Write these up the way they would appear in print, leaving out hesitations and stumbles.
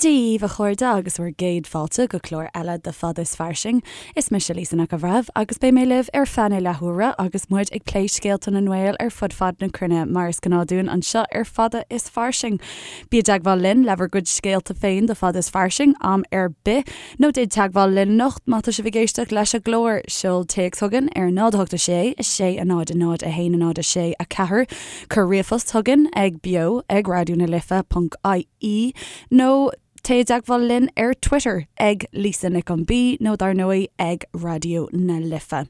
Dia dhaoibh a chairde agus bhur gcéad fáilte go clár eile de Fada is Fairsing. Is mise Lisa Nic an Bhreithimh agus beidh mé libh ar feadh na leathuaire agus muid ag plé scéalta na nGael ar fud fad na cruinne mar is gnáth dúinn anseo ar Fada is Fairsing. Bí i dteagmháil linn le bhur gcuid scéalta féin do Fada is Fairsing am ar bith nó déan teagmháil linn anocht má tá sibh ag éisteacht leis an gclár. Seol téacs chugainn ar 0 8 6 6 0 0 1 0 6 4 Cuir ríomhphost chugainn ag beo ag raidió na life ponc ie nó téigh i dteagmháil linn ar Twitter ag Lisa Nic an B nó dar ndóigh ag Raidió na Life.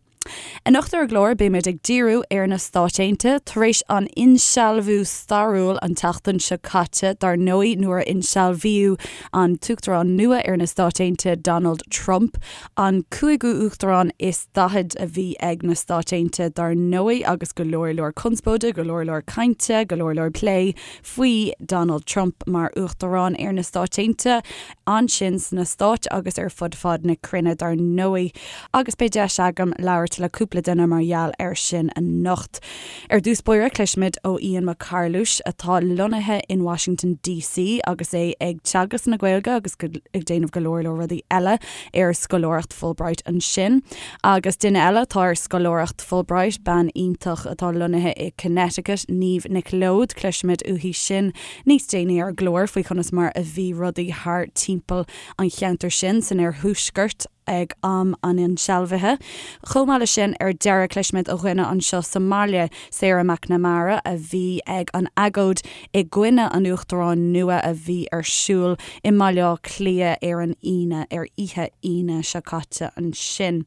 Anocht ar an gclár beimid ag díriú ar na Stáit Aontaithe tar éis an insealbhú stairiúil an tseachtain seo caite dar ndóigh nuair a insealbhaíodh an tUachtarán nua ar na Stáit Aontaithe Donald Trump, an cúigiú Uachtarán is 40 a bhí ag na Stáit Aontaithe dar ndóigh agus go leor leor conspóide, go leor leor cainte, go leor leor plé faoi Donald Trump mar Uachtarán ar na Stáit Aontaithe ansin sna Stáit agus ar fud fad na cruinne dar ndóigh agus beidh deis agam labhairt le cúpla duine mar gheall air sin anocht. Ar dtús báire cloisfimid ó Ian Mac Carluis atá lonnaithe in Washington DC agus é ag teagasc na Gaeilge agus ag déanamh go leor leor rudaí eile ar scoláireacht Fulbright ansin. Agus duine eile atá ar scoláireacht Fulbright, bean iontach atá lonnaithe i Connecticut, Niamh Nic Leoid, cloisfimid uaithi sin níos déanaí ar an gclár faoi chonas mar a bhí rudaí thar timpeall an cheantair sin san oirthuaisceart ag am an insealbhaithe. Chomh maith leis sin, ar deireadh, cloisfimid ó dhuine anseo sa mbaile, Sarah McNamara, a bhí ag an agóid i gcoinne an Uachtaráin nua a bhí ar siúl i mBaile Átha Cliath ar an Aoine, ar oíche Aoine seo caite ansin.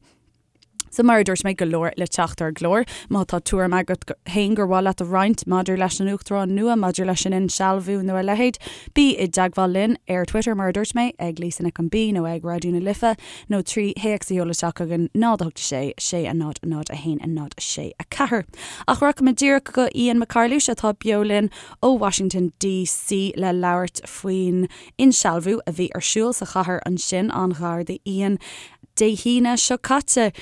So mar a dúirt mé, go leor le teacht ar an gclár. Má tá tuairim agat féin gur mhaith leat a roinnt maidir leis an Uachtarán nua, maidir leis an insealbhú nó a leithéid, bí i dteagmháil linn ar Twitter, mar a dúirt mé, ag Lisa Nic an B nó ag Raidió na Life, nó 3 théacs a sheoladh isteach chugainn 0 8 6 6 0 0 1 0 6 4. Ach rachaimid díreach go Ian Mac Carluis atá beo linn ó Washington DC le labhairt faoin insealbhú a bhí ar siúl sa chathair ansin an-ghar d'Ian Dé hAoine seo caite.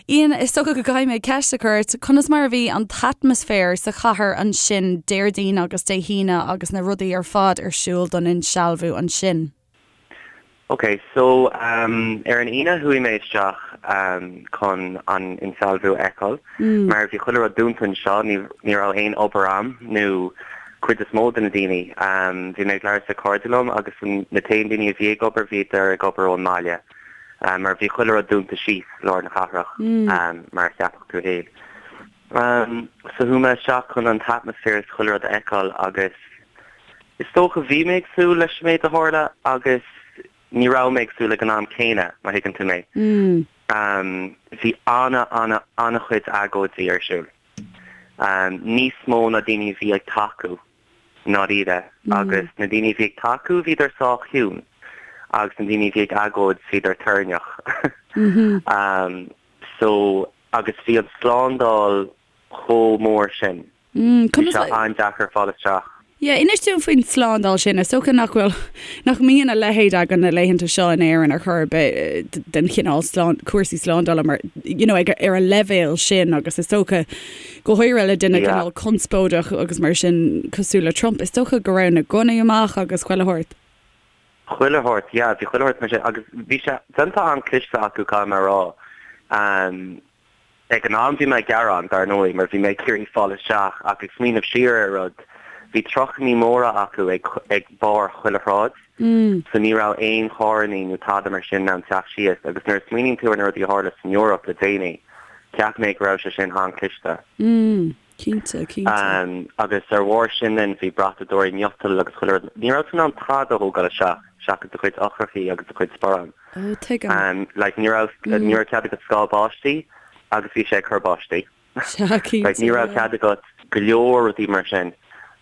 Ian, is dócha go gcaithfidh mé ceist a chur ort, conas mar a bhí an t-atmaisféar sa chathair ansin Déardaoin agus Dé hAoine agus na rudaí ar fad ar siúl don insealbhú ansin? Ok, so ar an Aoine chuaigh mé isteach chun an insealbhú a fheiceáil mar bhí chuile rud dúnta anseo, ní ní raibh aon obair a'm nó cuid is mó de na daoine. Bhí mé ag labhairt le cairde liom agus na t-aon daoine a bhí ag obair bhíodar ag obair ón mbaile mar bhí chuile rud dúnta síos i lár na cathrach mar a cheapfadh tú fhéin. So chuaigh mé isteach chun an t-atmaisféar is chuile rud a fheiceáil agus Is dócha, bhí mé ag súil leis an méid a tharla agus ní raibh mé ag súil ag an am céanna, má thuigeann tú mé. Bhí ana, ana, ana-chuid agóidí ar siúl. Níos mó ná daoine a bhí ag tacú, i ndáiríre. Agus na daoine a bhí ag tacú, bhíodar sách ciúin. Agus na daoine a bhí ag agóid, bhíodar toirneach. So, agus bhí an slándáil chomh mór sin. Bhí sé an-deacair fáil isteach. Yeah, inis dúinn faoin tslándáil sin. Is dócha nach bhfuil, nach mbíonn a leithéid againn na laethanta seo in Éirinn ar chor ar bith den chineál slán, cúrsaí slándála mar, you know, ag, ar an leibhéal sin agus is dócha, go háirithe le duine Yeah. cineál conspóideach agus mar sin cosúil le Trump, is dócha go raibh na gunnaí amach agus chuile shórt. Chuile shórt, yeah, bhí chuile shórt mar sin agus bhí sé déanta an-cliste acu, caithfidh mé a rá. Um, Ag an am bhí mé ag gearán, dar ndóigh, mar bhí mé ag iarraidh fáil isteach ach ag smaoineamh siar ar rud, bhí trucannaí móra acu ag ag barr chuile shráid so ní raibh aon charrannaí nó tada mar sin in ann teacht síos agus nuair a smaoiníonn tú ar na rudaí a tharla san Eoraip le déanaí, cheap mé go raibh sé sin an-chliste. Cinnte, cinnte. Agus ar bharr sin then bhí brathadóirí miotail agus chuile rud. Ní raibh tú in ann tada a thógáil isteach seachas do chuid eochrachaí agus do chuid sparán. Ó, tuigim. Like ní raibh, ní raibh cead agat scáth báistí agus bhí sé ag cur báistí. Sea, cinnte. Like ní raibh cead agat go leor rudaí mar sin.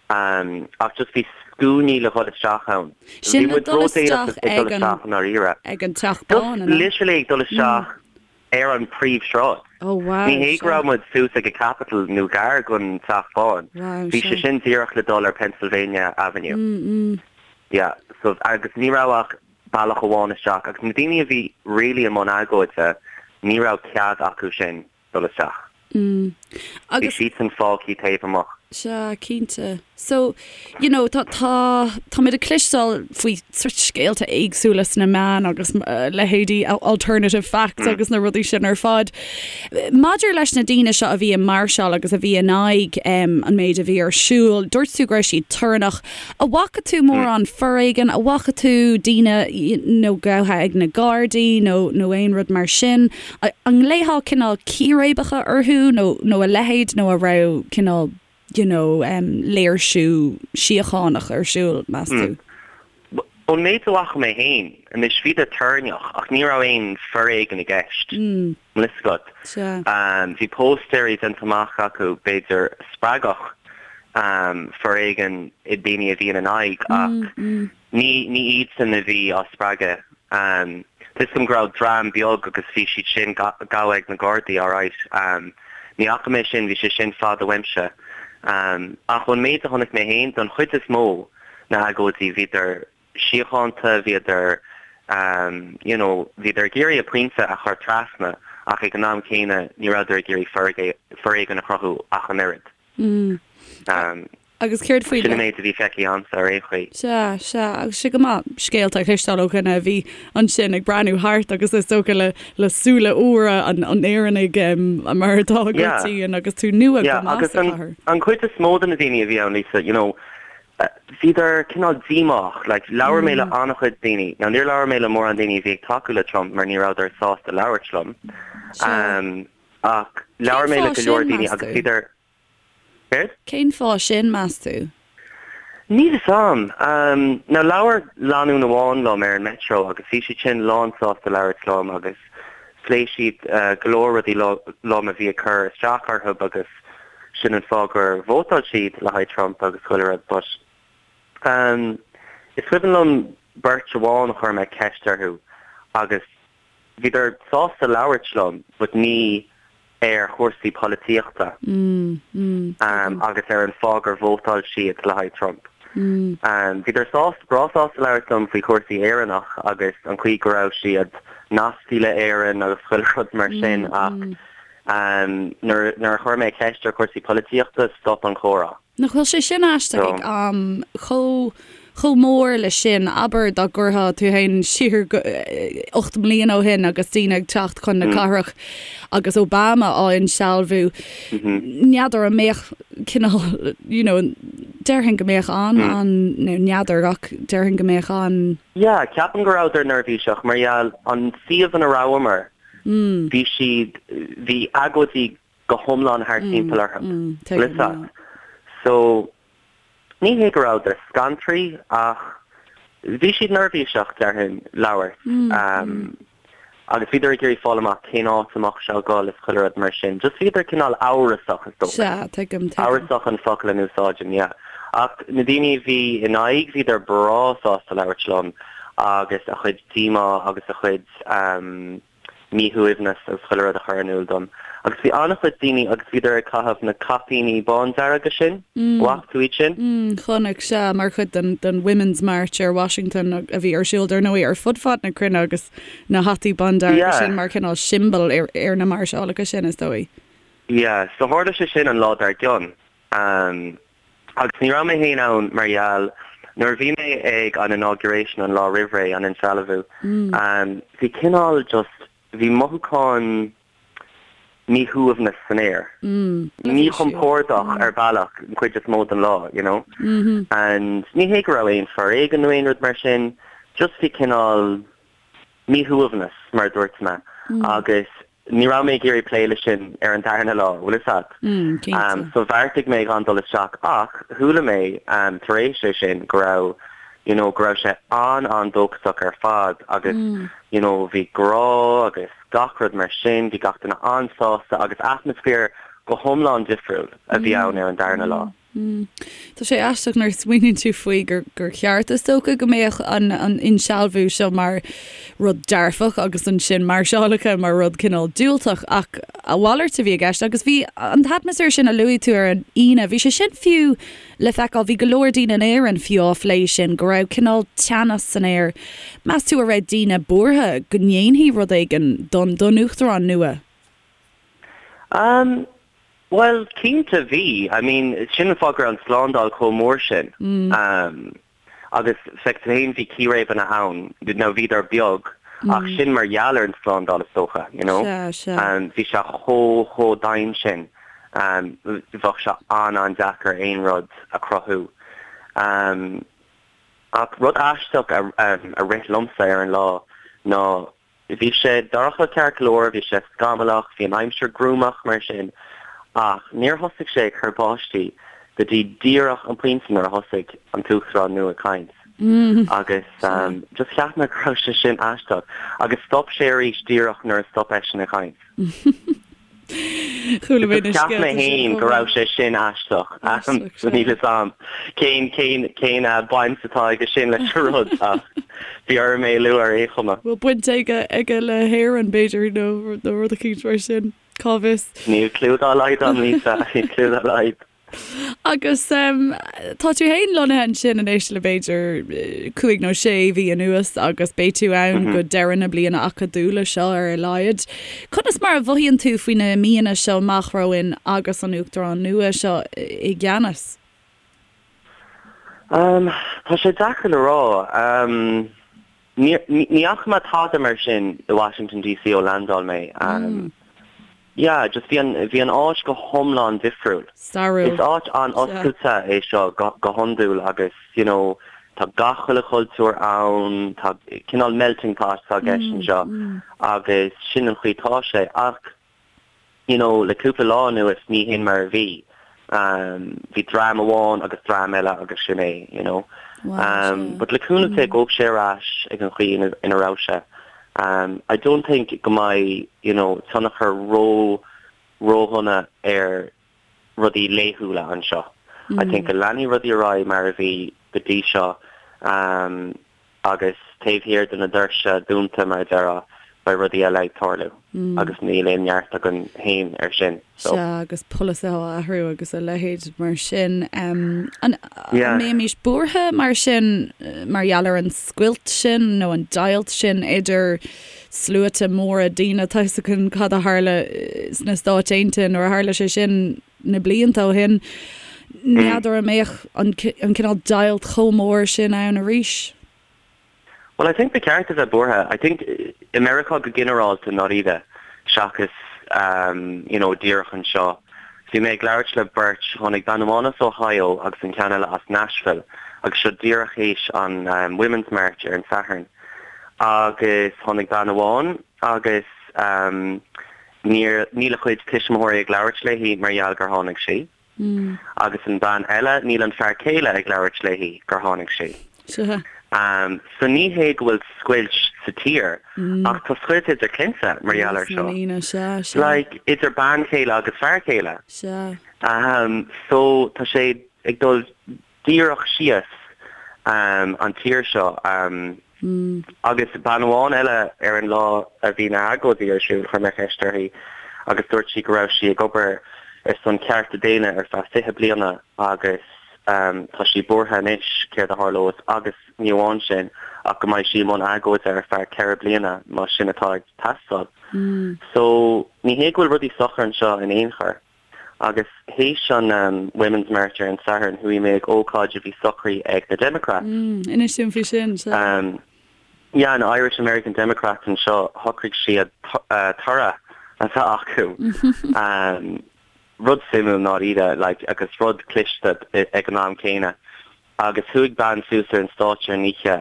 Ach just bhí scuainí le dhul isteach ann. Sin Bhí le muid dul ródhéanach isteach ag dul ag an, isteach i ndáiríre. ag an Teach Just Bán, an ea? literally ag dul isteach ar an príomhshráid. Oh wow, Ní hé go sea. raibh muid suas ag an Capitol nó gar don Teach Bán. Wow, Bhí sé sea. sin díreach le dul ar Pennsylvania Avenue. Mm, mm. Yeah, so agus ní raibh ach bealach amháin isteach agus na daoine a bhí really i mbun agóide, ní raibh cead acu sin dul isteach. Mm. Bhí Agus siadsan fágthaí taobh amuigh. Sea, cinnte. So, you know, tá, tá, táimid ag cloisteáil faoi sort scéalta éagsúla sna meáin agus leithéidí alternative facts agus na rudaí sin ar fad. Maidir leis na daoine seo a bhí ag máirseáil agus a bhí in aghaidh an méid a bhí ar siúl, dúirt tú go raibh siad torannach. An bhfaca tú mórán foréigin? An bhfaca tú daoine you know gafa ag na Gardaí nó nó aon rud mar sin? An nglaofá cineál círéibeacha orthu nó nó a leithéid nó an raibh cineál you know léirsiú síochánach ar siúl, meas tú? Ón méid a bhfaca mé féin, anois bhíodar torannach ach ní raibh aon foréigean i gceist, an bhfuil fhios agat. Bhí póstaeirí déanta amach acu, b'fhéidir, a spreagfadh foréigean i daoine a bhí ina n-aghaidh ach ní ní iadsan a bhí á spreagadh. Tá fhios agam go raibh dream beag agus bhí siad sin gafa ag na Gardaí, alright. Ní fhaca mé sin, bhí sé sin fada uaimse. Ach ón méid a chonaic mé féin, don chuid is mó, na agóidí, bhíodar síochánta, bhíodar you know, bhíodar ag iarraidh a pointe a chur trasna ach ag an am céanna ní rabhadar ag iarraidh foréigean a chruthú ach an oiread. Agus céard faoi Sin an méid a bhí feicthe a'msa ar aon chaoi. Sea, sea, agus sé go maith scéalta a chloisteáil ó dhuine a bhí ansin ag breathnú thart agus is dócha le le súile úra an an Éireannaigh mar atá agat féin agus tú nua go maith sa chathair. An chuid is mó de na daoine a bhí ann, Lisa, you know, bhíodar cineál díomách. Like, labhair mé le an-chuid daoine. Now, níor labhair mé le mórán daoine a bhí ag tacú le Trump mar ní rabhadar sásta labhairt liom. Ach labhair mé le go leor daoine agus bhíodar. Céard? Cén fáth sin, meas tú? Níl fhios a'm. Now, labhair lánúin amháin liom ar an metro agus bhí siad sin lán sásta labhairt liom agus phléigh siad go leor rudaí liom a bhí ag cur isteach orthu agus sin an fáth gur vótáil siad le haghaidh Trump agus chuile rud but is cuimhin liom beirt amháin a chuir mé ceist orthu agus bhíodar sásta labhairt liom but ní ar chúrsaí polaitíochta agus ar an fáth gur vótáil siad le haghaidh Trump. Bhíodar sásta, breá sásta labhairt liom faoi chúrsaí Éireannach agus an chaoi go raibh siad nasctha le Éirinn agus chuile rud mar sin ach nuair a chuir mé ceist ar chúrsaí polaitíochta, stop an comhrá. Nach bhfuil sé sin aisteach ag am chomh chomh mór le sin? Abair dá gcuirfeá tú féin siar go 8 mbliana ó shin agus daoine ag teacht chun na cathrach agus Obama á insealbhú, n'fheadar an mbeadh cineál, you know, déarfainn go mbeadh an, an, nó n'fheadar ach déarfainn go mbeadh an. Yeah, ceapaim go rabhadar neirbhíseach mar gheall an suíomh ina rabhamar, bhí siad, bhí agóidí go hiomlán thart timpeall orthu. Bhfuil fhios agat? So, ní hé go rabhadar scanraithe ach bhí siad neirbhíseach, déarfainn, labhairt. Agus bhíodar ag iarraidh fáil amach cén áit a mbeadh sé ag dul is chuile rud mar sin. Just bhíodar cineál amhrasach, is dócha. Sea, tuigim, tuigim. Amhrasach an focal a n-úsáidim, yeah. Ach na daoine a bhí in aghaidh, bhíodar breá sásta labhairt liom agus a chuid díomá agus a chuid míshuaimhneas agus chuile rud a chur in iúl dom. Agus bhí an-chuid daoine agus bhíodar ag caitheamh na caipíní bándearga sin, bhfaca tú iad sin? Chonaic, sea, mar chuid den den Women's March ar Washington a bhí ar siúl, dar ndóigh, ar fud fad na cruinne agus na hataí bándearga sin mar chineál siombail ar ar na máirseálacha sin, is dóigh. Yeah, so tharla sé sin an lá dár gcionn. Agus ní raibh mé féin ann mar gheall, nuair a bhí mé ag an inauguration an lá roimh ré, an insealbhú, bhí cineál just, bhí mothúchán míshuaimhneas san aer. Míchompordach ar bhealach an chuid is mó den lá, you know. And ní hé go raibh aon foréigean nó aon rud mar sin, just bhí cineál míshuaimhneas, mar a dúirt mé, agus Ní raibh mé ag iarraidh plé leis sin ar an darna lá, bhfuil fhios agat. Cinnte. So bheartaigh mé gan dul isteach ach chuala mé tar éis é sin go raibh you know go raibh sé an-an-dóchasach ar fad agus you know bhí grá agus gach rud mar sin, bhí gach duine an-sásta agus atmaisféar go hiomlán difriúil a bhí ann ar an darna lá. Tá sé aisteach nuair a smaoiníonn tú faoi gur gur cheart is dócha go mbeadh an an insealbhú seo mar rud dearfach agus ansin máirseálacha mar rud cineál diúltach ach a mhalairt a bhí i gceist agus bhí an t-atmaisféar sin a luaigh tú ar an Aoine, bhí sé sin fiú le feiceáil, bhí go leor daoine in Éirinn fiú á phlé sin, go raibh cineál teannas san aer. Meas tú an raibh daoine buartha go ndéanfaí rud éigin don don uachtarán nua? Um. Bhuel, cinnte bhí. I mean, sin an fáth go raibh an tslándáil chomh mór sin. Agus feic tú féin, bhí círéibeanna ann, now bhíodar beag, ach sin mar gheall ar an tslándáil is dócha, you know. Sea, sea. Bhí sé chomh, chomh dian sin, bheadh sé an-an-deacair aon rud a chruthú. Ach rud aisteach a rith liomsa ar an lá ná Bhí sé dorcha ceart go leor, bhí sé scamallach, bhí an aimsir gruamach mar sin, ach níor thosaigh sé ag cur báistí go dtí díreach an pointe nuair a thosaigh an tUachtarán nua ag caint. Agus just cheap mé go raibh sé sin aisteach. Agus stop sé arís díreach nuair a stop eisean ag caint. Chuala mé na Cheap mé scéalta sin féin chomh go raibh maith. sé sin aisteach. Aisteach, So níl sea. fhios a'm cén cén cén baint atá aige sin leis an rud ach bhí orm é a lua ar aon chuma. Bhfuil baint aige aige le hÉirinn, b'fhéidir, nó nó rud eicínt mar sin. Cá bhfios? Níl cliú dá laghad a'm, Lisa, níl cliú dá laghad. Agus tá tú féin lonnaithe ansin anois le b'fhéidir cúig nó sé mhí anuas agus beidh tú ann go deireadh na bliana acadúla seo ar a laghad. Conas mar a mhothaíonn tú faoi na míonna seo amach romhainn agus an Uachtarán nua seo i gceannas? Tá sé deacair le rá. Ní fhaca mé tada mar sin i Washington DC ó landáil mé. Yeah, just bhí an, bhí an áit go hiomlán difriúil. Stairiúil. Is áit an-oscailte é seo go, go hiondúil agus, you know, tá gach uile chultúr ann, tá cineál melting pot atá i gceist anseo agus sin an chaoi atá sé. Ach, you know, le cúpla lá anuas ní hin mar a bhí. Bhí dream amháin agus dream eile agus sin é, you know. But le cúnamh Dé gabhfaidh sé ar ais ag an chaoi ina, ina raibh sé. I don't think go mbeidh, you know, tionchar ró, ródhona ar rudaí laethúla anseo. I think go leanfaidh rudaí ar aghaidh mar a bhí go dtí seo. Agus taobh thiar de na doirse dúnta, mar a déarfá, beidh rudaí eile ag tarlú agus níl aon neart againn féin air sin. So. Sea, agus polasaithe á athrú agus a leithéid mar sin. An mbeimis buartha mar sin mar gheall ar an scoilt sin nó an deighilt sin idir sluaite móra daoine? Tá 'fhios againn cad a tharla sna Stáit Aontaithe nuair a tharla sé sin na blianta ó shin. N'fheadar an mbeadh an cineál deighilt chomh mór sin ann arís. Well, I think ba cheart a bheith buartha. I think i Meiriceá go ginearálta, i ndáiríre, seachas you know díreach anseo. Bhí mé ag labhairt le beirt, tháinig bean amháin as Ohio agus an ceann eile as Nashville agus seo díreach théis an Women's March ar an Satharn. Agus tháinig bean amháin agus Níor, níl a cuid tuismitheoirí ag labhairt léi mar gheall gur tháinig sí. Agus an bean eile, níl an fear céile ag labhairt léi gur tháinig sí. Sea. So ní hé go bhfuil scoilt sa tír, ach tá scoilt idir clainne mar gheall air seo. Measc na ndaoine, sea, sea. Like, idir bean chéile agus fear céile. Sea. So tá sé ag dul díreach síos an tír seo. Agus bean amháin eile ar an lá a bhí na hagóidí ar siúl, chuir mé ceist uirthi agus dúirt sí go raibh sí ag obair ar son cearta daonna ar feadh 20 bliana agus tá sí buartha anois céard a tharlós agus ní amháin sin ach go mbeidh sí i mbun agóide ar feadh 4 bliana má sin atá ag teastáil. So ní hé go bhfuil rudaí socair anseo in aon chor. Agus théis an Women's March ar an Satharn, chuaigh mé ag ócáid a bhí socraithe ag na Democrats. Inis dúinn faoi sin, sea. Yeah, na Irish American Democrats anseo, shocraigh siad toradh a bheith acu. Rud suimiúil i ndáiríre, like, agus rud cliste ag an am céanna. Agus chuaigh bean suas ar an stáitse ar an oíche.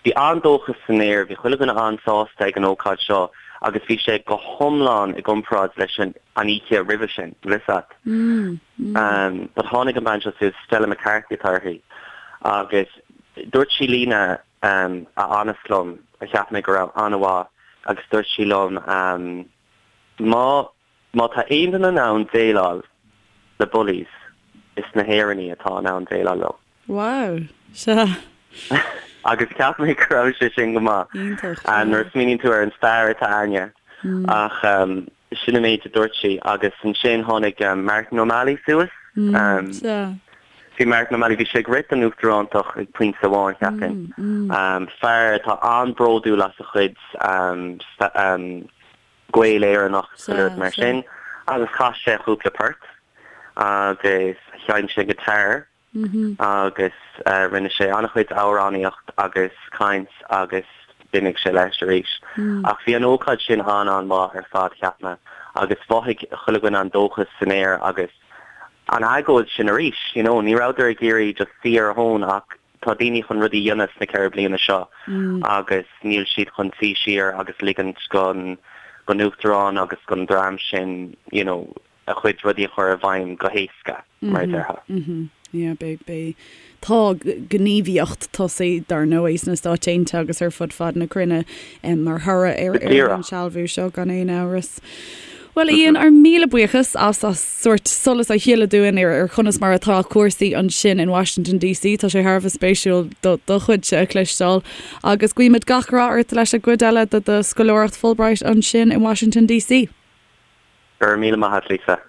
Bhí an-dóchas san aer, bhí chuile dhuine an-sásta ag an ócáid seo agus bhí sé go hiomlán i gcomparáid leis an oíche roimhe sin, bhfuil fhios a't. But tháinig an bean seo suas, Stella McCarthy atá uirthi, agus dúirt sí líne a fhanas liom, a cheap mé go raibh an-mhaith, agus dúirt sí liom, má Má tá aon duine in ann déileáil le bullies, is na hÉireannaigh atá in ann déileáil leo. Wow! Sea. Agus cheap mé go raibh sé sin go maith. Iontach, sea. Nuair a smaoiníonn tú ar an stair atá againne. Ach sin an méid a dúirt sí. Agus ansin tháinig Martin O'Malley suas. Sea. Bhí Martin O'Malley, bhí sé ag rith don uachtarántacht ag pointe amháin, cheapfainn. Fear atá an-bhródúil as a chuid gaol Éireannach, chuile rud mar sin. Agus chas sé cúpla port agus sheinn sé guitar agus rinne sé an-chuid amhránaíocht agus caint agus d'imigh sé leis arís. Ach bhí an ócáid sin an-an-mhaith ar fad, cheap mé, agus mhothaigh chuile dhuine an dóchas san aer agus an agóid sin arís, you know, ní rabhadar ag iarraidh just suí ar a thóin ach tá daoine chun rudaí a dhéanamh sna 4 bliana seo agus níl siad chun suí siar agus ligint don don uachtarán agus don dream sin, you know, a chuid rudaí a chur i bhfeidhm go héasca, mar a déarfá. Yeah, beidh, beidh, tá gníomhaíocht tosaithe, dar ndóigh, sna Stáit Aontaithe agus ar fud fad na cruinne mar thoradh ar ar an insealbhú seo, gan aon amhras. Bhuel, a Ian, ár míle buíochas as as sórt solas a shileadh dúinn ar ar chonas mar atá cúrsaí ansin in Washington DC. Tá sé thar a bheith spéisiúil do do chuidse a chloisteáil agus guímid gach rath ort leis an gcuid eile de do scoláireacht Fulbright ansin in Washington DC. Go raibh míle maith a't, Lisa.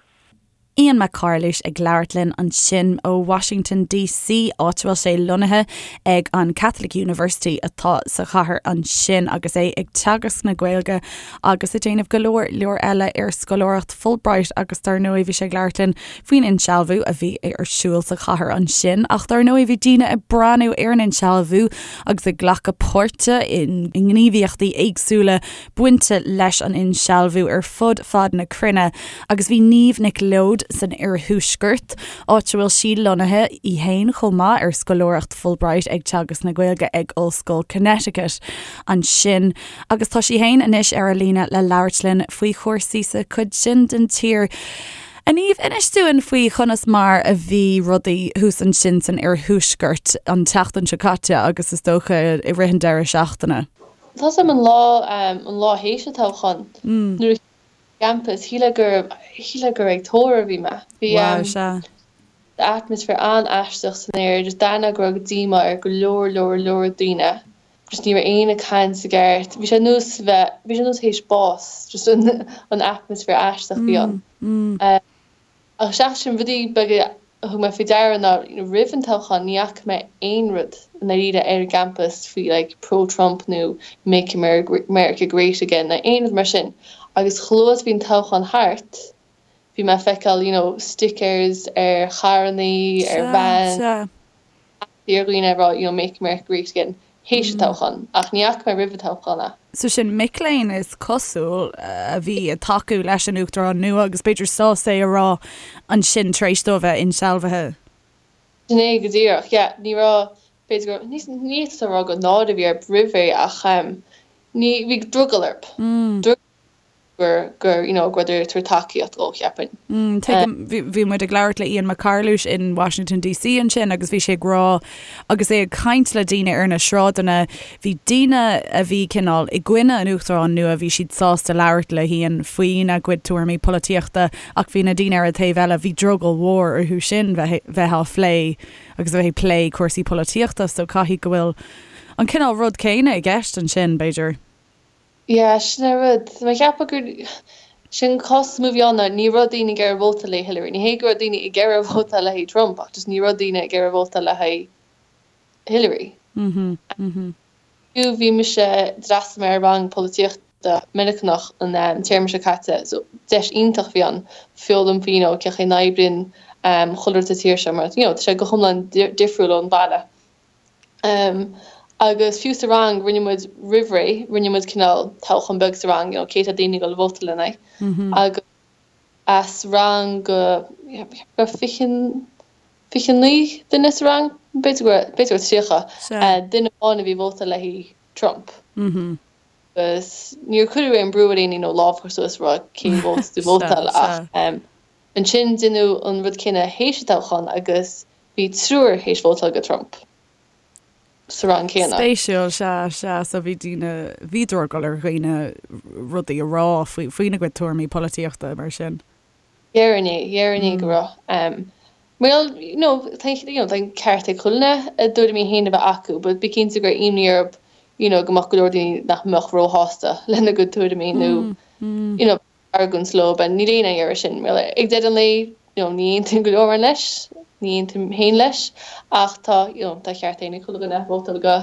Ian Mac Carluis ag labhairt linn ansin ó Washington DC, áit a bhfuil sé lonnaithe ag an Catholic University atá sa chathair ansin agus é ag teagasc na Gaeilge agus ag déanamh go leor leor eile ar scoláireacht Fulbright agus dar ndóigh bhí sé ag labhairt linn faoin insealbhú a bhí ar siúl sa chathair ansin. Ach dar ndóigh bhí daoine ag breathnú ar an insealbhú agus ag glacadh páirte i ngníomhaíochtaí éagsúla bainte leis an insealbhú ar fud fad na cruinne agus bhí Niamh Nic Leoid san iarthuaisceart, áit a bhfuil sí lonnaithe í fhéin chomh maith ar scoláireacht Fulbright ag teagasc na Gaeilge ag Ollscoil Connecticut ansin agus tá sí fhéin anois ar an líne le labhairt linn faoi chúrsaí sa chuid sin den tír. A Niamh, inis dúinn faoi chonas mar a bhí rudaí thuas ansin san iarthuaisceart an tseachtain seo caite agus is dócha i rith an deireadh seachtaine. Tá 's a'm an lá, an lá théis an toghcháin, nuair a campus, shílfeá gur, shílfeá gur ag tórramh a bhí mé. Bhí Wow, sea. atmaisféar an-aisteach san aer, just d'aithneofá go raibh díomá ar go leor, leor, leor daoine. Just ní raibh éinne ag caint i gceart. Bhí sé nós bheith, bhí sé nós théis bás, just an, an atmaisféar aisteach a bhí ann. Ach seachas sin, rudaí beaga a thug mé faoi deara ná roimh an toghchán ní fhaca mé aon rud i ndáiríre ar an gcampas faoi like pro-Trump nó make America great again nó aon rud mar sin. Agus chomh luath is a bhí an toghchán thart bhí mé ag feiceáil you know stickers ar charrannaí, ar vans, ar dhaoine ag rá you know make America great again théis an toghcháin ach ní fhaca mé roimh an toghchán é. So sin mic léinn is cosúil a bhí ag tacú leis an Uachtarán nua agus b'fhéidir sásta é a rá ansin tar éis dó a bheith insealbhaithe. Sin é go díreach, yeah. Ní raibh, b'fhéidir go, ní ní féidir a rá gur náire a bhí orthu roimh ré ach ní, bhí drogall orthu. Drogall gur, gur, you know, go rabhadar ag tabhairt tacaíocht dhó, cheapfainn. Tuigim, bhí, bhí muid ag labhairt le Ian Mac Carluis in Washington DC ansin agus bhí sé ag rá, agus é ag caint le daoine ar na sráideanna, bhí daoine a bhí cineál i gcoinne an Uachtaráin nua, bhí siad sásta labhairt le hIan faoina gcuid tuairimí polaitíochta ach bhí na daoine ar an taobh eile, bhí drogall mhór orthu sin bheith, bheith á phlé agus a bheith ag plé cúrsaí polaitíochta so caithfidh go bhfuil an cineál rud céanna i gceist ansin, b'fhéidir. Yeah, sin an rud. Tá mé ag ceapadh gur sin cás is mó a bhí ann ná ní raibh daoine ag iarraidh vótáil le Hillary. Ní hé go raibh daoine ag iarraidh vótáil le haghaidh Trump ach just ní raibh daoine ag iarraidh vótáil le haghaidh Hillary. Fiú bhí mise, d'fhreastail mé ar rang polaitíochta Meiriceánach an téarma seo caite so deis iontach a bhí ann foghlaim faoi you know cén chaoi a n-oibríonn chuile rud sa tír seo mar you know tá sé go hiomlán difriúil ón bhaile. Agus fiú sa rang, rinne muid roimh ré, rinne muid cineál toghchán beag sa rang, you know, cé tá daoine ag dul a vótáil lena aghaidh. Agus as rang go, raibh 20, 29 duine sa rang, b'fhéidir go raibh, b'fhéidir go raibh 30, duine amháin a bhí ag vótáil le haghaidh Trump. Agus níor cuireadh aon brú ar éinne, you know, lámh a chur suas a rá cén vóta tú vótáil ach ansin deineadh an rud céanna théis an toghcháin agus Bhí triúr théis vótáil go Trump sa rang céanna. Spéisiúil, sea, sea. So bhí daoine, bhí drogall ar dhaoine rudaí a rá faoi, faoina gcuid tuairimí polaitíochta mar sin. Déarfainn é, déarfainn é go raibh. Well, you know, tá, you know, tá an ceart ag chuile dhuine a dtuairimí féin a bheith acu, but bí cinnte go raibh imní orthu, you know, go mbeadh go leor daoine nach mbeadh róshásta lena gcuid tuairimí nó, you know, argóint leo, but níl éinne ag iarraidh sin. Well, ag deireadh an lae, you know, ní aontaíonn go leor leis, ní aontaím féin leis, ach tá, you know, tá ceart ag chuile dhuine vótáil go.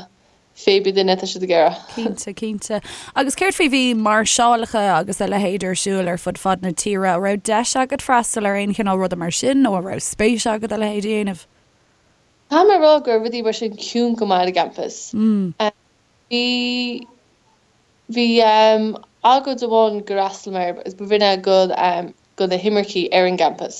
Pé bith duine atá siad ag iarraidh. Cinnte, cinnte. Agus céard faoi, bhí máirseálacha agus a leithéid ar siúl ar fud fad na tíre, an raibh deis agat freastal ar aon chineál ruda mar sin nó an raibh spéis agat a leithéid a dhéanamh? Caithfidh mé a rá go raibh rudaí mar sin ciúin go maith ar an gcampas. Bhí, bhí agóid amháin gur fhreastail mé air agus ba bh'in é go, go na himircigh ar an gcampas.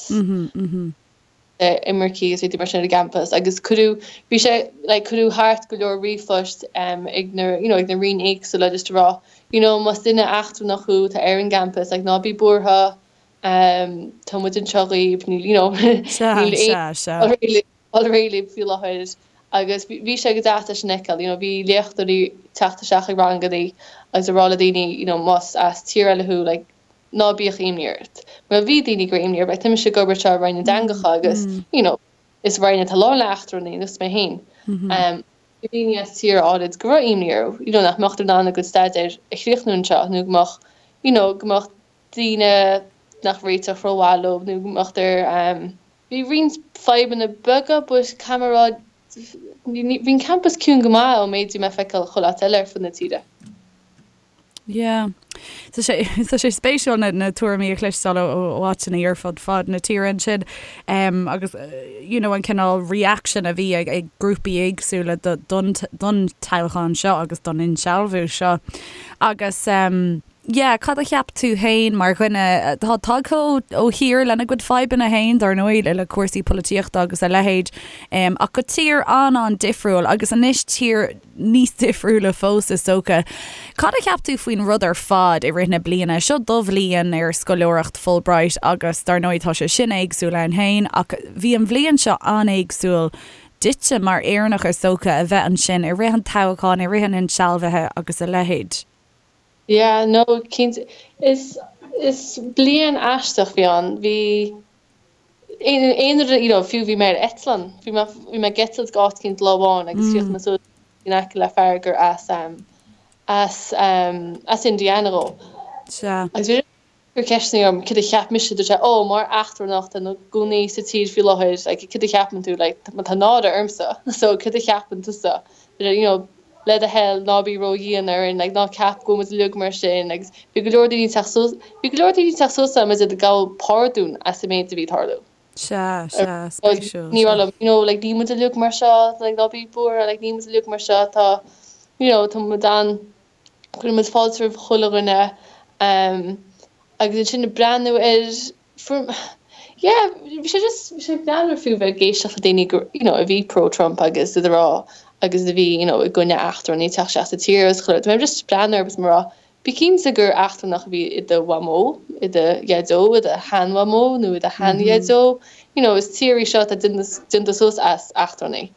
Imircigh agus rudaí mar sin ar an gcampas agus cuireadh, bhí sé, like cuireadh thart go leor ríomhphoist ag na, you know, ag na roinn éagsúla just a rá, you know, más duine eachtrannach thú atá ar an gcampas, like ná bí buartha, tá muid anseo dhaoibh, níl, you know, níl aon dul réidh libh faoi láthair agus bhí sé go deas é sin a fheiceáil, you know, bhí léachtóirí ag teacht isteach ag rangannaí agus ag rá le daoine, you know, más as tír eile thú, like, ná bíodh imní ort. Mar bhí daoine go raibh imní orthu, like, tá mise ag obair anseo i Roinn na dTeangacha agus, you know, is roinn atá lán le eachtrannaigh, nós mé féin. Bhí daoine as tíortha áirid go raibh imní orthu, you know, nach mbeadh in ann a gcuid staidéir a chríochnú anseo nó go mbeadh, you know, go mbeadh daoine nach réiteodh rómhaith leo nó go mbeadh ar, bhí roinnt fadhbanna beaga but caithfidh mé a rá, bhí an campas ciúin go maith ón méid a bhí mé ag feiceáil chuile áit eile ar fud na tíre. Yeah. Tá sé, tá sé spéisiúil na, na tuairimí a chloisteáil ó, ó áiteanna ar fud fad na tíre ansin um, agus you know, an cineál reaction a bhí ag, ag grúpaí éagsúla do, don, don toghchán seo agus don insealbhú seo. Agus um, yeah, cad a cheap tú féin mar dhuine atá tagtha ó, ó thír lena gcuid fadhbanna féin, dar ndóigh, le, le cúrsaí polaitíochta agus a leithéid, um, ach go tír an-an-difriúil agus anois tír níos difriúla fós is dócha. Cad a cheap tú faoin rud ar fad i rith na bliana? Seo do bhliain ar scoláireacht Fulbright agus dar ndóigh tá sé sin éagsúil ann féin ach bhí an bhliain seo an-éagsúil duitse mar Éireannach is dócha a bheith ansin i rith an toghcháin, i rith an insealbhaithe agus a leithéid. Yeah, no, cinnte. Is, is bliain aisteach a bhí ann. Bhí. Aon rud, you know, fiú bhí mé ar eitleán, bhí mé, bhí mé ag eitilt go áit éicint lá amháin agus chríochnaigh mé suas in aice le fear gur as, as, as Indiana dhó. Sea. Agus bhí sé ag cur ceisteanna orm cad a cheap mise, dúirt sé, oh, mar eachtrannach atá ina gcónaí sa tír faoi láthair, like, cad a cheapann tú, like, tá náire ormsa, so cad a cheapann tusa, you know, le do thoil, ná bí ró-dhian orainn, like, ná ceap go bhfuil muid uilig mar sin, agus bhí go leor daoine ag teacht suas, bhí go leor daoine ag teacht suas agam is iad ag gabháil pardún as an méid a bhí ag tarlú. Sea, sea, spéisiúil, Ní raibh liom, you know, like, níl muid uilig mar seo, like, ná bí buartha, like, níl muid uilig mar seo, tá, you know, tá muid an, cuireann muid fáilte roimh chuile dhuine, um, agus ansin ag breathnú ar, For, yeah, bhí sé just, bhí sé greannmhar fiú bheith ag éisteacht le daoine go, you know, a bhí pro-Trump agus iad ag rá agus a bhí, you know, i gcoinne eachtrannaigh teacht isteach sa tír agus chuile rud. Bhí mé just ag breathnú orthu agus mé ag rá, bí cinnte gur eachtrannach a bhí i do mhamó, i do dhaideo, i do sheanmhamó nó i do sheandhaideo. You know, is tír í seo atá déanta suas as eachtrannaigh.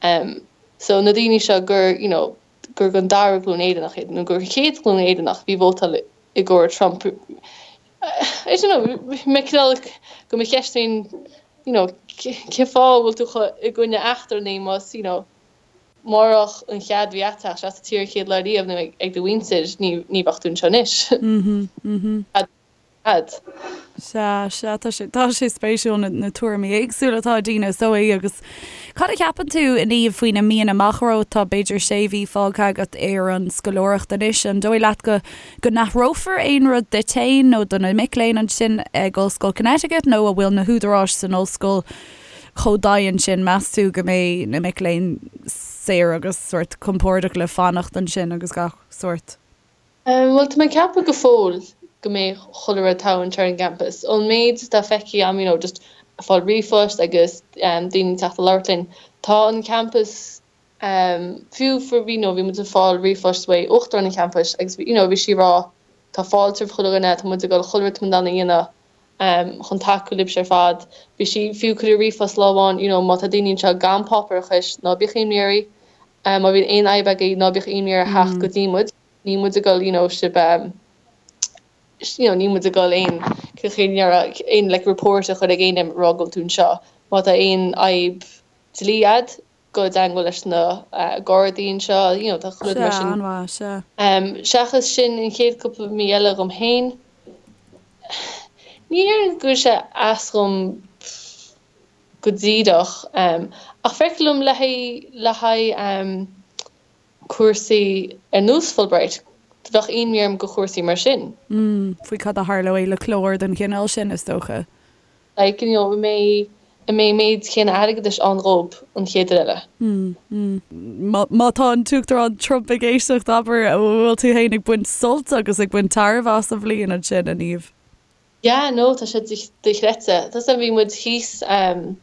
Um, so na daoine seo gur, you know, gur den dara glúin Éireannach iad nó gur chéad ghlúin Éireannach a bhí ag vótáil i gcomhair Trump, I don't know, mé cineál go mo cheist féin, you know, cén fáth a bhfuil tú chomh i gcoinne eachtrannaigh más, you know, murach an chead a bhí agat teacht isteach sa tír an chéad lá riamh nó ag do mhuintir, ní, ní bheadh tú anseo anois. Mhm, mhm. Fad. Sea, sea, tá sé, tá sé spéisiúil na, na tuairimí éagsúla atá ag daoine is dóigh agus cad a cheapann tú a Niamh faoi na míonna amach romhat? Tá b'fhéidir sé mhí fágtha agat ar an scoláireacht anois, an dóigh leat go, go n-athrófar aon rud duit féin nó do na mic léinn ansin ag Ollscoil Connecticut nó an bhfuil na húdaráis san ollscoil chomh dian sin, meas tú go mbeidh na mic léinn saor agus sórt compordach le fanacht ansin agus gach sórt? Bhuel, tá mé ag ceapadh go fóill go mbeidh chuile rud togha anseo ar an gcampas. Ón méid atá feicthe agam, you know, just ag fáil ríomhphost agus daoine ag teacht a labhairt linn, tá an campas, fiú for, you know, bhí muid ag fáil ríomhphost uaidh uachtarán an champais agus you know, bhí sí ag rá tá fáilte roimh chuile dhuine, tá muid ag dul chuile rud atá muid in ann a dhéanamh chun tacú libhse ar fad. Bhí sí fiú cuireadh ríomhphost lá amháin, you know, má tá daoine anseo gan páipéarachais, ná bíodh imní oraibh, má bhíonn aon fhadhb agaibh, ná bíodh imní oraibh theacht go dtí muid. Níl muid ag dul you know sibh um you know níl muid ag dul aon aon like report a chur ag éinne ag rá go bhfuil tú anseo. Má tá aon fhadhb dlí a'd, gabh i dteagmháil leis na Gardaí anseo, you know tá chuile rud mar sin. Sea, an-mhaith, sea. Um seachas sin an chéad cúpla mí eile dhom féin, ní déarfainn go bhfuil sé as dhom go díreach um ach feictear liom le haghaidh le haghaidh um. Cúrsaí ar nós Fulbright, bheadh imní orm go chúrsaí mar sin. Faoi cad a tharlóidh le clár den chineál sin, is dócha. Like, you know, an mbeidh, an mbeidh an méid céanna airgeadais ann dhób an chéad uair eile? Má tá an tUachtarán Trump ag éisteacht, abair, an bhfuil tú féin ag baint sult agus ag baint tairbhe as an bhliain ansin, a Niamh? Yeah, no, tá sé dochreidte. Tá 's agam, bhí muid thíos, ceann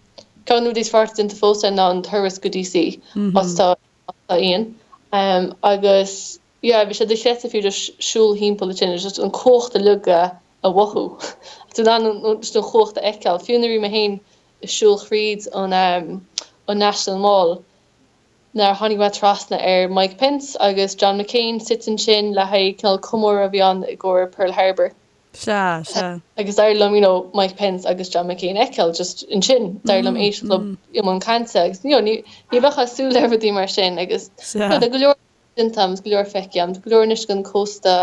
de na rudaí is fearr atá déanta fós againn ná an turas go DC, áit atá Tá Ian. Agus yeah, bhí sé dochreidte fiú just siúl thimpeall ansin, just an cumhacht uilig a mhothú. Tú in ann just an chumhacht a fheiceáil. Fiú nuair a bhí mé féin ag siúl thríd an an National Mall, nuair a tháinig mé trasna ar Mike Pence agus John McCain suite ansin le haghaidh cineál comóradh a bhí ann i gcomhair Pearl Harbour. Sea, sea. Agus d'éirigh liom, you know, Mike Pence agus John McCain a fheiceáil just ansin. D'éirigh liom éisteacht leo i mbun cainte agus, you know, ní, ní bheifeá ag súil le rudaí mar sin agus, you know, tá go leor déanta agam, go leor feicthe agam, tá go leor anois den cósta,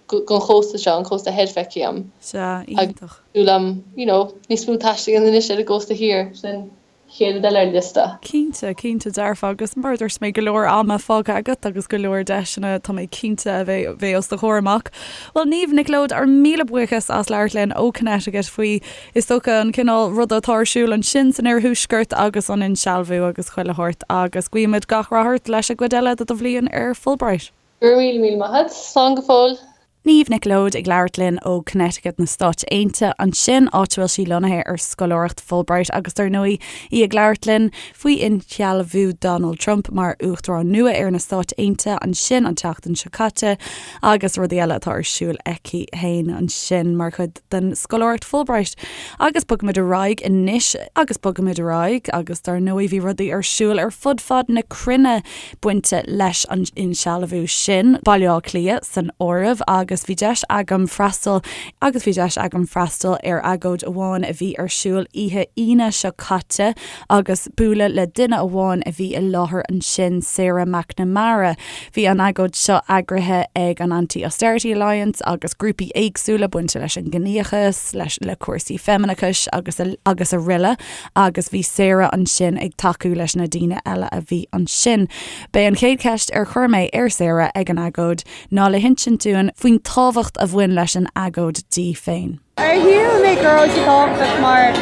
den chósta seo, an cósta thoir feicthe agam. Sea, iontach. Agus súil agam, you know, níos mó taistil a dhéanamh anois ar an gcósta thiar, sin chéad rud eile ar an liosta. Cinnte, cinnte dearfa agus mar a dúirt mé go leor ama fágtha agat agus go leor deiseanna tá mé cinnte a bheidh bheidh os do chomhair amach. Bhuel Niamh Nic Leoid ár míle buíochas as labhairt linn ó Connecticut faoi is dócha an cineál ruda atá ar siúl ansin san oirthuaisceart agus an insealbhú agus chuile shórt agus guímid gach rath ort leis an gcuid eile de do bhliain ar Fulbright. Go raibh míle míle maith agat. Slán go fóill. Niamh Nic Leoid ag labhairt linn ó Connecticut na Stáit Aontaithe ansin, áit a bhfuil sí lonnaithe ar scoláireacht Fulbright agus dar ndóigh í ag labhairt linn faoi insealbhú Donald Trump mar Uachtarán nua ar na Stáit Aontaithe ansin an tseachtain seo caite agus rudaí eile atá ar siúl aici féin ansin mar chuid den scoláireacht Fulbright. Agus bogfaimid ar aghaidh anois agus bogfaimid ar aghaidh agus dar ndóigh bhí rudaí ar siúl ar fud fad na cruinne bainte leis an insealbhú sin, Baile Átha Cliath san áireamh, agus bhí deis agam freastal agus bhí deis agam freastal ar agóid amháin a bhí ar siúl oíche Aoine seo caite agus bualadh le duine amháin a bhí i láthair ansin, Sarah McNamara. Bhí an agóid seo eagraithe ag an Anti-Austerity Alliance agus grúpaí éagsúla bainte leis an gciníochas, leis le cúrsaí feimineachais agus agus araile. agus bhí Sarah ansin ag tacú leis na daoine eile a bhí ansin. B'é an chéad cheist ar chuir mé ar Sarah ag an agóid ná le hinsint dúinn faoin tábhacht a bhain leis an agóid di féin. Shíl mé go raibh sé tábhachtach mar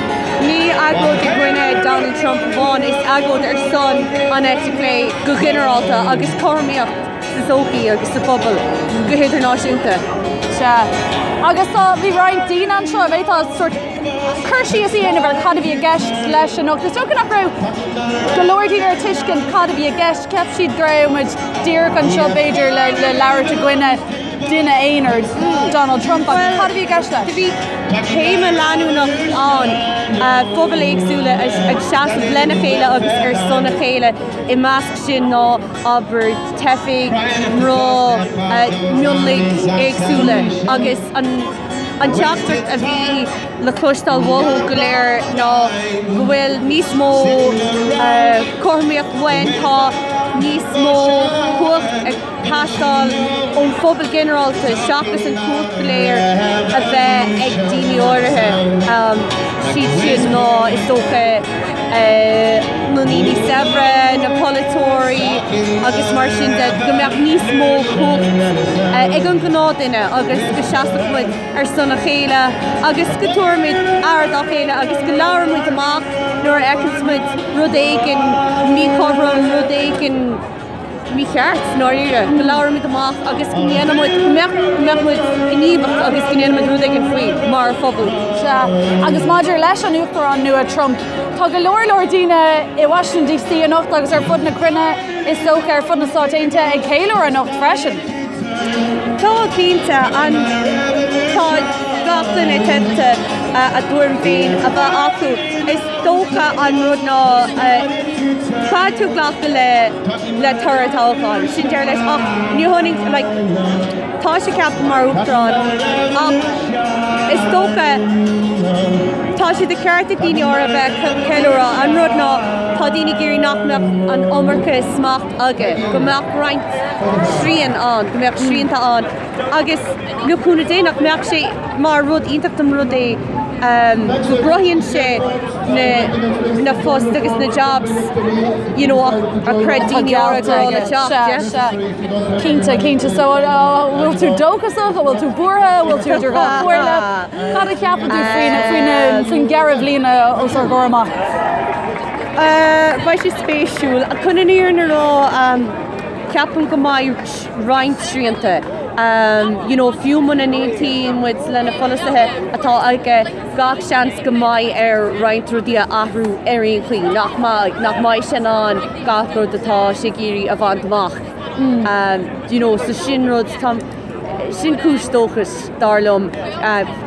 ní agóid i gcoinne Donald Trump amháin, is agóid ar son an eite chlé go ginearálta agus cothromaíocht sa tsochaí agus sa phobal go hidirnáisiúnta. Sea. Agus tá, bhí roinnt daoine anseo, an bhféadfá sórt cur síos a dhéanamh ar cad a bhí i gceist leis anocht. Is dócha nach raibh go leor daoine ar tuiscint cad a bhí i gceist. Cheap siad go raibh muid díreach anseo b'fhéidir le le labhairt i gcoinne duine aonair, Donald Trump, ach cad a bhí i gceist leis? Bhí téama leanúnach ann, pobail éagsúla ag seasamh lena chéile agus ar son a chéile, i measc sin ná abair teifigh, mná, mionlaigh éagsúla agus an An teachtaireacht a bhí le cloisteáil uathu go léir ná go bhfuil níos mó cothromaíocht uainn, tá níos mó cumhacht ag teastáil ón phobal ginearálta seachas an chumhacht go léir a bheith ag daoine áirithe, siad sin ná is dócha na daoine saibhre, na polaiteoirí agus mar sin de, go mbeadh níos mó cumhacht ag an ghnáthduine agus go seasfadh muid ar son a chéile agus go dtabharfaimid aire dá chéile agus go labhróidh muid amach nuair a fheiceanns muid rud éigin míchothrom, rud éigin mícheart, i ndáiríre, go labhróidh muid amach agus go ndéanfaidh muid, go mbeadh, go mbeadh muid gníomhach agus go ndéanfaidh muid rud éigin faoi mar phobal. Sea, agus maidir leis an Uachtarán nua Trump, tá go leor leor daoine i Washington DC anocht agus ar fud na cruinne, is dócha, ar fud na Stáit Aontaithe ag ceiliúradh anocht freisin. Tá, cinnte. An, tá gach duine teidlte a dtuairim féin a bheith acu. Is dócha an rud ná caithfidh tú glacadh le le toradh toghcháin. Sin deireadh leis ach ní hionann like tá sé ceaptha mar uachtarán ach is dócha tá sé de cheart ag daoine áirithe bheith ag ceiliúradh. An rud ná tá daoine ag iarraidh nach mbeadh an iomarca smacht aige, go mbeadh roinnt srian ann, go mbeadh srianta ann agus le cúnamh Dé nach mbeadh sé mar rud iontach dá mba rud é. go gcruthaíonn sé na poist agus na jobs you know a chreid daoine áirithe go raibh le teacht, yeah. Sea, sea. Cinnte, cinnte. So an bhfuil tú dóchasach, an bhfuil tú buartha, an bhfuil tú idir dhá chomhairle? Cad a cheapann tú faoin gceithre bhliana os ár gcomhair amach? Beidh sé spéisiúil. Chun an fhírinne a rá, ceapaim go mbeidh roinnt srianta. You know, fiú muna n-aontaíonn muid le na polasaithe atá aige, gach seans go mbeidh air roinnt rudaí a athrú ar aon chaoi, nach mbeidh, nach mbeidh sé in ann gach rud atá sé ag iarraidh a bhaint amach. You know, so sin rud, tá, sin cúis dóchais, dar liom.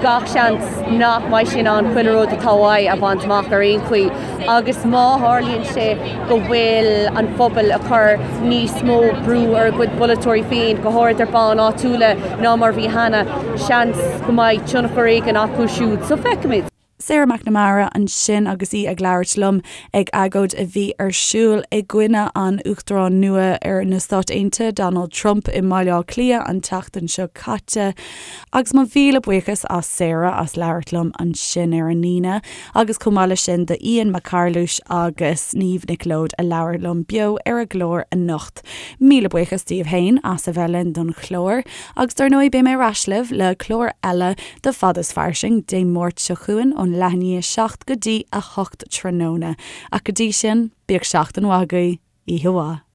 Gach seans nach mbeidh sé in ann chuile rud atá uaidh a bhaint amach ar aon chaoi. Agus má tharlaíonn sé go bhfuil an phobal ag cur níos mó brú ar a gcuid polaiteoirí féin, go háirid ar bonn áitiúla, ná mar bhí cheana, seans go mbeidh tionchar éigin acu siúd. So feicfimid. Sarah McNamara ansin agus í ag labhairt liom ag agóid a bhí ar siúl i gcoinne an Uachtaráin nua ar na Stáit Aontaithe, Donald Trump, i mBaile Átha Cliath an tseachtain seo caite. Agus mo mhíle buíochas as Sarah as labhairt liom ansin ar an Aoine. Agus chomh maith leis sin do Ian Mac Carluis agus Niamh Nic Leoid a labhair liom beo ar an gclár anocht. Míle buíochas daoibh féin as a bheith linn don chlár. Agus dar ndóigh beidh mé ar ais libh le clár eile de Fad is Fairsing Dé Máirt seo chugainn ón leath i ndiaidh 7 go dtí 8 tráthnóna. Ach go dtí sin, bíodh seachtain mhaith agaibh. Oíche mhaith.